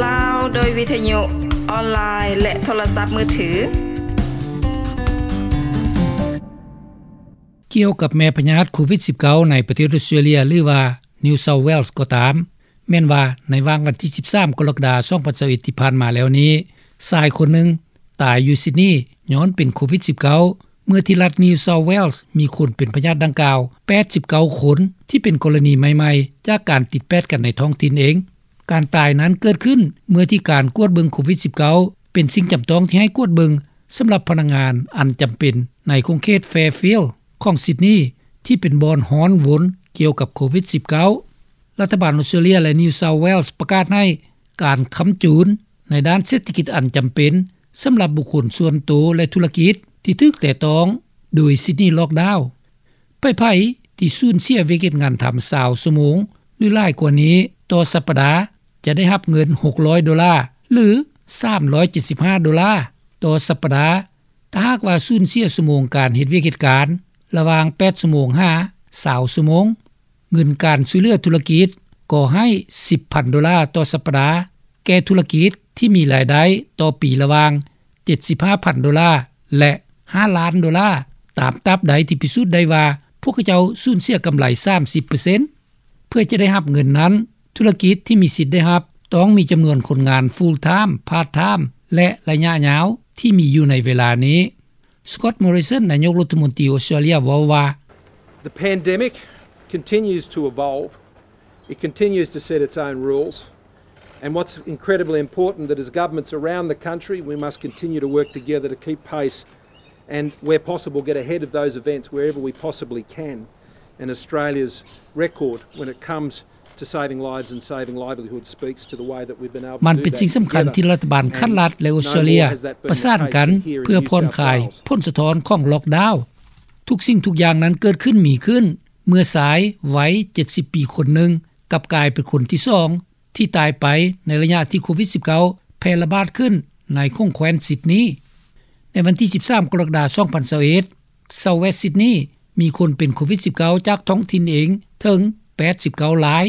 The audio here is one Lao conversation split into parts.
ລາວ ໂດຍວິທະຍຸອອນລາຍ ແລະ ໂທລະສັບມືຖື. ກ່ຽວກັບແມ່ພະຍາດໂຄວິດສິບເກົ້າ ໃນປະເທດອອສເຕຣເລັຍ ຫຼືວ່າ New South Wales ກໍຕາມ, ແມ່ນວ່າໃນຫວ່າງວັນທີສິບສາມ ກໍລະກະດາ ສອງພັນຊາວເອັດ ທີ່ຜ່ານມາແລ້ວນີ້, ຊາຍຄົນໜຶ່ງຕາຍຢູ່ຊິດນີ ຍ້ອນເປັນໂຄວິດສິບເກົ້າ ເມື່ອທີ່ລັດ New South Wales ມີຄົນເປັນພະຍາດດັ່ງກ່າວ ແປດສິບເກົ້າຄົນ ທີ່ເປັນກໍລະນີໃໝ່ໆ ຈາກການຕິດແປດກັນໃນທ້ອງຖິ່ນເອງ. ການຕາຍນັ້ນເກີດຂຶ້ນເມື່ອທີ່ການກວດເບິ່ງໂຄວິດສິບເກົ້າ ເປັນສິ່ງຈຳຕ້ອງທີ່ໃຫ້ກວດເບິ່ງສຳລັບພະນັກງານອັນຈຳເປັນໃນຂົງເຂດ Fairfield ຂອງຊິດນີ ທີ່ເປັນບ່ອນຮ້ອນວົນກ່ຽວກັບໂຄວິດສິບເກົ້າ. ລັດຖະບານອອສເຕຣເລັຍ ແລະ New South Wales ປະກາດໃຫ້ການຄ້ຳຈູນໃນດ້ານເສດຖະກິດອັນຈຳເປັນສຳລັບບຸກຄົນສ່ວນໂຕ ແລະ ທຸລະກິດທີ່ຖືກແຕະຕ້ອງໂດຍ Sydney Lockdown. ໃຜໆທີ່ສູນເສຍວຽກເຮັດງານທຳຊາວຊົ່ວໂມງ ຫຼື ຫຼາຍກວ່ານີ້ຕໍ່ສັບປະດາ ຈະໄດ້ຮັບເງິນຫົກຮ້ອຍໂດລາ ຫຼື ສາມຮ້ອຍເຈັດສິບຫ້າໂດລາຕໍ່ສັບປະດາ ຖ້າຫາກວ່າສູນເສຍຊົ່ວໂມງການເຮັດວຽກເຮັດການລະຫວ່າງແປດຊົ່ວໂມງຫາຊາວຊົ່ວໂມງ. ເງິນການຊ່ວຍເຫຼືອທຸລະກິດກໍໃຫ້ສິບພັນໂດລາຕໍ່ສັບປະດາ ແກ່ທຸລະກິດທີ່ມີລາຍໄດ້ຕໍ່ປີລະຫວ່າງເຈັດສິບຫ້າພັນໂດລາ ແລະ ຫ້າລ້ານໂດລາ ຕາມຕາບໃດທີ່ພິສູດໄດ້ວ່າພວກເຂົາເຈົ້າສູນເສຍກຳໄລສາມສິບເປີເຊັນ. ເພື່ອຈະໄດ້ຮັບເງິນນັ້ນ, ທຸລະກິດທີ່ມີສິດໄດ້ຮັບຕ້ອງມີຈຳນວນຄົນງານ full time, part time ແລະ ໄລຍະຍາວທີ່ມີຢູ່ໃນເວລານີ້. Scott Morrison ນາຍົກລັດຖະມົນຕີອອສເຕຣເລັຍເວົ້າວ່າ, The pandemic continues to evolve. It continues to set its own rules. And what's incredibly important, that as governments around the country, we must continue to work together to keep pace and, where possible, get ahead of those events wherever we possibly can. And Australia's record when it comes to saving lives and saving livelihoods speaks to the way that we've been able to do that together. ມັນເປັນສິ່ງສຳຄັນທີ່ລັດຖະບານຂັ້ນລັດ ແລະ ອອສເຕຣເລັຍປະສານກັນເພື່ອຜ່ອນຄາຍຜົນສະທ້ອນຂອງ Lockdown. ທຸກສິ່ງທຸກຢ່າງນັ້ນເກີດຂຶ້ນມີຂຶ້ນເມື່ອຊາຍໄວເຈັດສິບປີຄົນໜຶ່ງ ກັບກາຍເປັນຄົນທີສອງທີ່ຕາຍໄປໃນໄລຍະທີ່ໂຄວິດສິບເກົ້າ ແຜ່ລະບາດຂຶ້ນໃນຂົງແຄວ້ນຊິດນີ. ໃນວັນທີສິບສາມ ກໍລະກະດາ ສອງພັນຊາວເອັດ, South West Sydney ມີຄົນເປັນໂຄວິດສິບເກົ້າ ຈາກທ້ອງຖິ່ນເອງເຖິງແປດສິບເກົ້າລາຍ.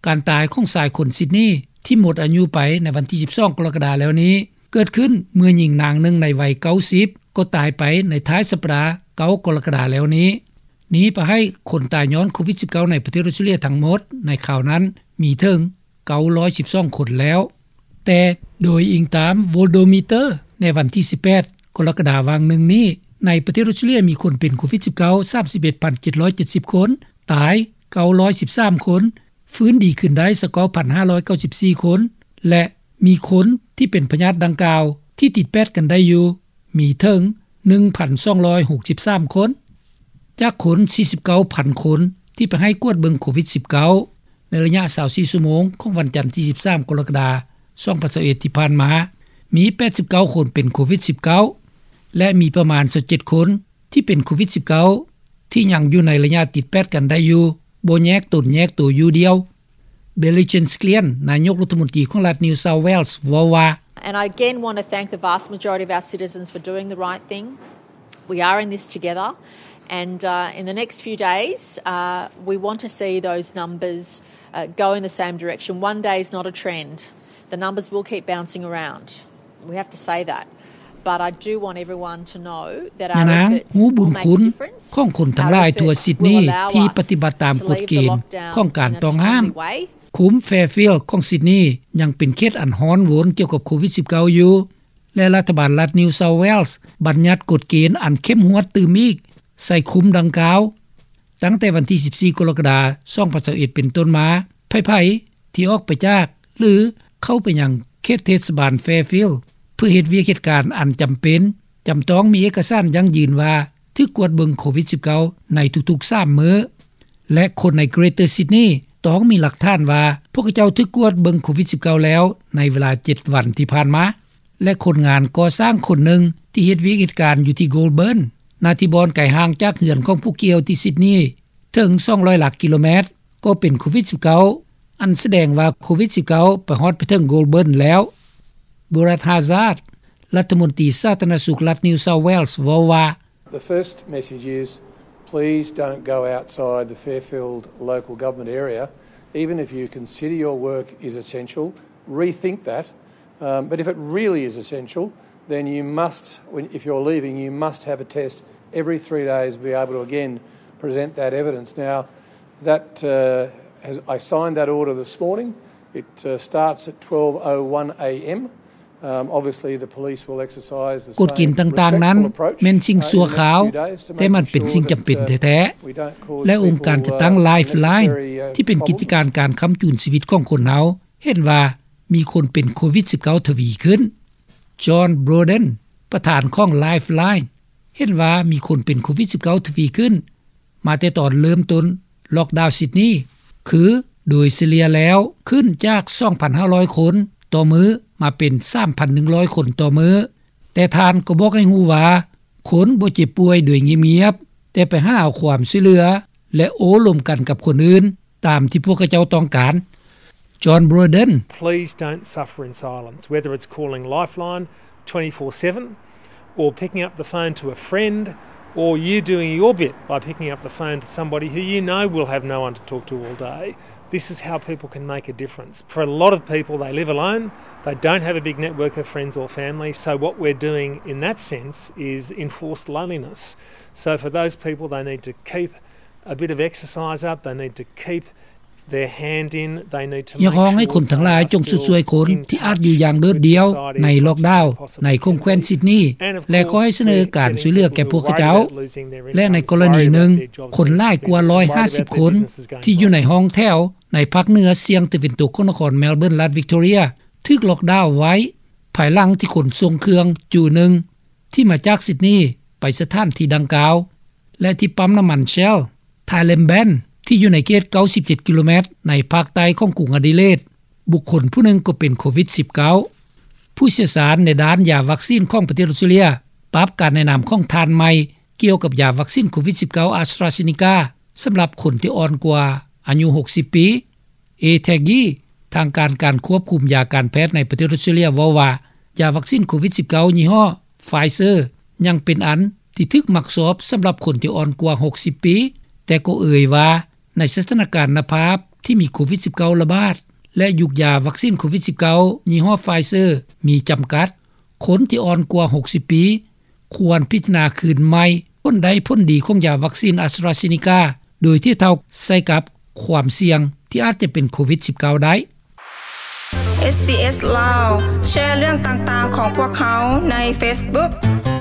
ການຕາຍຂອງຊາຍຄົນຊິດນີທີ່ໝົດອາຍຸໄປໃນວັນທີສິບສອງ ກໍລະກະດາແລ້ວນີ້ ເກີດຂຶ້ນເມື່ອຍິງນາງໜຶ່ງໃນໄວເກົ້າສິບ ກໍຕາຍໄປໃນທ້າຍສັບປະດາ ເກົ້າ ກໍລະກະດາແລ້ວນີ້. ນີ້ປະໃຫ້ຄົນຕາຍຍ້ອນໂຄວິດສິບເກົ້າ ໃນປະເທດອອສເຕຣເລັຍທັງໝົດໃນຄາວນັ້ນມີເຖິງເກົ້າຮ້ອຍສິບສອງຄົນແລ້ວ. ແຕ່ໂດຍອີງຕາມ Worldometer ໃນວັນທີສິບແປດ ກໍລະກະດາຫວ່າງໜຶ່ງນີ້, ໃນປະເທດອອສເຕຣເລັຍມີຄົນເປັນໂຄວິດສິບເກົ້າ ສາມສິບເອັດພັນເຈັດຮ້ອຍເຈັດສິບຄົນ, ຕາຍເກົ້າຮ້ອຍສິບສາມຄົນ, ຟື້ນດີຂຶ້ນໄດ້ສະເກົ້າພັນຫ້າຮ້ອຍເກົ້າສິບສີ່ຄົນ ແລະ ມີຄົນທີ່ເປັນພະຍາດດັ່ງກ່າວທີ່ຕິດແປດກັນໄດ້ຢູ່ ມີເຖິງໜຶ່ງພັນສອງຮ້ອຍຫົກສິບສາມຄົນ ຈາກຄົນສີ່ສິບເກົ້າພັນຄົນທີ່ໄປໃຫ້ກວດເບິ່ງໂຄວິດສິບເກົ້າ ໃນໄລຍະຊາວສີ່ຊົ່ວໂມງຂອງວັນຈັນທີສິບສາມ ກໍລະກະດາ ສອງພັນຊາວເອັດ ທີ່ຜ່ານມາ, ມີແປດສິບເກົ້າຄົນເປັນໂຄວິດສິບເກົ້າ ແລະ ມີປະມານຊາວເຈັດຄົນທີ່ເປັນໂຄວິດສິບເກົ້າ ທີ່ຍັງຢູ່ໃນໄລຍະຕິດແປດກັນໄດ້ຢູ່, ບໍ່ແຍກຕົນແຍກໂຕຢູ່ດ່ຽວ. Billy Jean Sklien ນາຍົກລັດຖະມົນຕີຂອງລັດ New South Wales ເວົ້າວ່າ, And I again want to thank the vast majority of our citizens for doing the right thing. We are in this together. And, uh, in the next few days, uh, we want to see those numbers, uh, go in the same direction. One day is not a trend. The numbers will keep bouncing around. We have to say that. But I do want everyone to know that our efforts will make a difference. ຍານາງຮູ້ບຸນຄຸນຂອງຄົນທັງຫຼາຍທົ່ວຊິດນີທີ່ປະຕິບັດຕາມກົດເກນຂອງການຕ້ອງຫ້າມ. ຂຸມ Fairfield ຂອງຊິດນີຍັງເປັນເຂດອັນຮ້ອນວົນກ່ຽວກັບໂຄວິດສິບເກົ້າຢູ່ ແລະ ລັດຖະບານລັດ New South Wales ບັນຍັດກົດເກນອັນເຂັ້ມງວດຕື່ມອີກໃສ່ຂຸມດັ່ງກ່າວ. ຕັ້ງແຕ່ວັນທີສິບສີ່ ກໍລະກະດາ ສອງພັນຊາວເອັດ ເປັນຕົ້ນມາ, ໃຜໆທີ່ອອກໄປຈາກ ຫຼື ເຂົ້າໄປຍັງເຂດເທດສະບານ Fairfield ເພື່ອເຮັດວຽກເຮັດການອັນຈຳເປັນ ຈຳຕ້ອງມີເອກະສານຢັ້ງຢືນວ່າຖືກກວດເບິ່ງໂຄວິດສິບເກົ້າ ໃນທຸກໆສາມມື້ ແລະ ຄົນໃນ Greater Sydney ຕ້ອງມີຫຼັກຖານວ່າພວກເຂົາເຈົ້າຖືກກວດເບິ່ງໂຄວິດສິບເກົ້າ ແລ້ວໃນເວລາເຈັດວັນທີ່ຜ່ານມາ. ແລະ ຄົນງານກໍ່ສ້າງຄົນໜຶ່ງທີ່ເຮັດວຽກເຮັດການຢູ່ທີ່ Goulburn, ນາທີ່ບ່ອນໄກຫ່າງຈາກເຮືອນຂອງຜູ້ກ່ຽວທີ່ຊິດນີເຖິງສອງຮ້ອຍຫຼັກກິໂລແມັດ ກໍເປັນໂຄວິດສິບເກົ້າ ອັນສະແດງວ່າໂຄວິດສິບເກົ້າ ໄປຮອດໄປເຖິງ Goulburn ແລ້ວ. Brad Hazzard, ລັດຖະມົນຕີສາທາລະນະສຸກລັດ New South Wales ເວົ້າວ່າ, The first message is, please don't go outside the Fairfield local government area, even if you consider your work is essential. rethink that. Um, but if it really is essential, then you must, when, if you're leaving, you must have a test every three days, be able to again present that evidence. Now, that uh, has, I signed that order this morning. It uh, starts at twelve oh one a.m. Um, obviously, the police will exercise the ກົດເກນຕ່າງໆນັ້ນແມ່ນສິ່ງຊົ່ວຄາວ, ແຕ່ມັນເປັນສິ່ງຈຳເປັນແທ້ໆ ແລະ ອົງການຈັດຕັ້ງ Lifeline ທີ່ເປັນກິດຈະການການຄ້ຳຈູນຊີວິດຂອງຄົນເຮົາ ເຫັນວ່າມີຄົນເປັນໂຄວິດ-19 ທະວີຂຶ້ນ. John Broden ປະທານຂອງ Lifeline ເຫັນວ່າມີຄົນເປັນໂຄວິດ-19 ທະວີຂຶ້ນ ມາແຕ່ຕອນເລີ່ມຕົ້ນລັອກດາວຊິດນີ ຄືໂດຍສະເລ່ຍແລ້ວຂຶ້ນຈາກ ສອງພັນຫ້າຮ້ອຍຄົນຕໍ່ມື້ ມາເປັນ ສາມພັນໜຶ່ງຮ້ອຍຄົນຕໍ່ມື້. ແຕ່ທ່ານກໍບອກໃຫ້ຮູ້ວ່າ ຄົນບໍ່ເຈັບປ່ວຍໂດຍງຽບໆ ແຕ່ໄປຫາເອົາຄວາມຊ່ວຍເຫຼືອ ແລະ ໂອ້ລົມກັນກັບຄົນອື່ນ ຕາມທີ່ພວກເຂົາເຈົ້າຕ້ອງການ. John Broden. Please don't suffer in silence, whether it's calling Lifeline twenty-four seven or picking up the phone to a friend, or you doing your bit by picking up the phone to somebody who you know will have no one to talk to all day. This is how people can make a difference. For a lot of people, they live alone, they don't have a big network of friends or family, so what we're doing in that sense is enforced loneliness. So for those people, they need to keep a bit of exercise up, they need to keep their hand in, they need to make sure they are still in society. ຢາກຮ້ອງໃຫ້ຄົນທັງຫຼາຍຈົ່ງຊຸດຊ່ວຍຄົນທີ່ອາດຢູ່ຢ່າງໂດດດ່ຽວໃນລັອກດາວໃນຂົງແຂວນຊິດນີ ແລະ ຂໍໃຫ້ສະເໜີການຊ່ວຍເຫຼືອແກ່ພວກເຂົາເຈົ້າ. ແລະ ໃນກໍລະນີໜຶ່ງ ຄົນຫຼາຍກວ່າ ຮ້ອຍຫ້າສິບຄົນ ທີ່ຢູ່ໃນຫ້ອງແຖວໃນພາກເໜືອສ່ຽງຕາເວັນຕົກຂອງນະຄອນ Melbourne ລັດ Victoria ຖືກລັອກດາວໄວ້ ພາຍຫຼັງທີ່ຂົນສົ່ງເຄື່ອງຈູໜຶ່ງທີ່ມາຈາກຊິດນີໄປສະຖານທີ່ດັ່ງກ່າວ ແລະ ທີ່ປ້ຳນ້ຳມັນ Shell ທ້າຍ Lamband ທີ່ຢູ່ໃນເຂດ ເກົ້າສິບເຈັດ ກິໂລແມັດ ໃນພາກໃຕ້ຂອງກຸງອະດີເລດ ບຸກຄົນຜູ້ໜຶ່ງກໍເປັນໂຄວິດ-19. ຜູ້ຊ່ຽວຊານໃນດ້ານຢາວັກຊີນຂອງປະເທດອອສເຕຣເລັຍ ປັບການແນະນຳຂອງທ່ານໃໝ່ກ່ຽວກັບຢາວັກຊີນໂຄວິດ-19 AstraZeneca ສຳລັບຄົນທີ່ອ່ອນກວ່າອາຍຸຫົກສິບປີ. Ed Haggie ທາງການການຄວບຄຸມຢາການແພດໃນປະເທດອອສເຕຣເລັຍເວົ້າວ່າ ຢາວັກຊີນໂຄວິດ-19 ຍີ່ຫໍ້ Pfizer ຍັງເປັນອັນທີ່ຖືກມັກຊອບສຳລັບຄົນທີ່ອ່ອນກວ່າຫົກສິບປີ, ແຕ່ກໍເອີ່ຍວ່າ ໃນສະຖານະການນະພາບທີ່ມີໂຄວິດ-19 ລະບາດ ແລະ ຍຸກຢາວັກຊີນໂຄວິດ-19 ຍີ່ຫໍ້ Pfizer ມີຈຳກັດ, ຄົນທີ່ອ່ອນກວ່າຫົກສິບປີ ຄວນພິຈາລະນາຄືນໃໝ່ຜົນໄດ້ຜົນດີຂອງຢາວັກຊີນ AstraZeneca ໂດຍທຽບເທົ່າໃສ່ກັບຄວາມສ່ຽງທີ່ອາດຈະເປັນໂຄວິດ-19 ໄດ້. ເອສບີເອສ ລາວ ແຊເລື່ອງຕ່າງໆຂອງພວກເຮົາໃນເຟສບຸກ.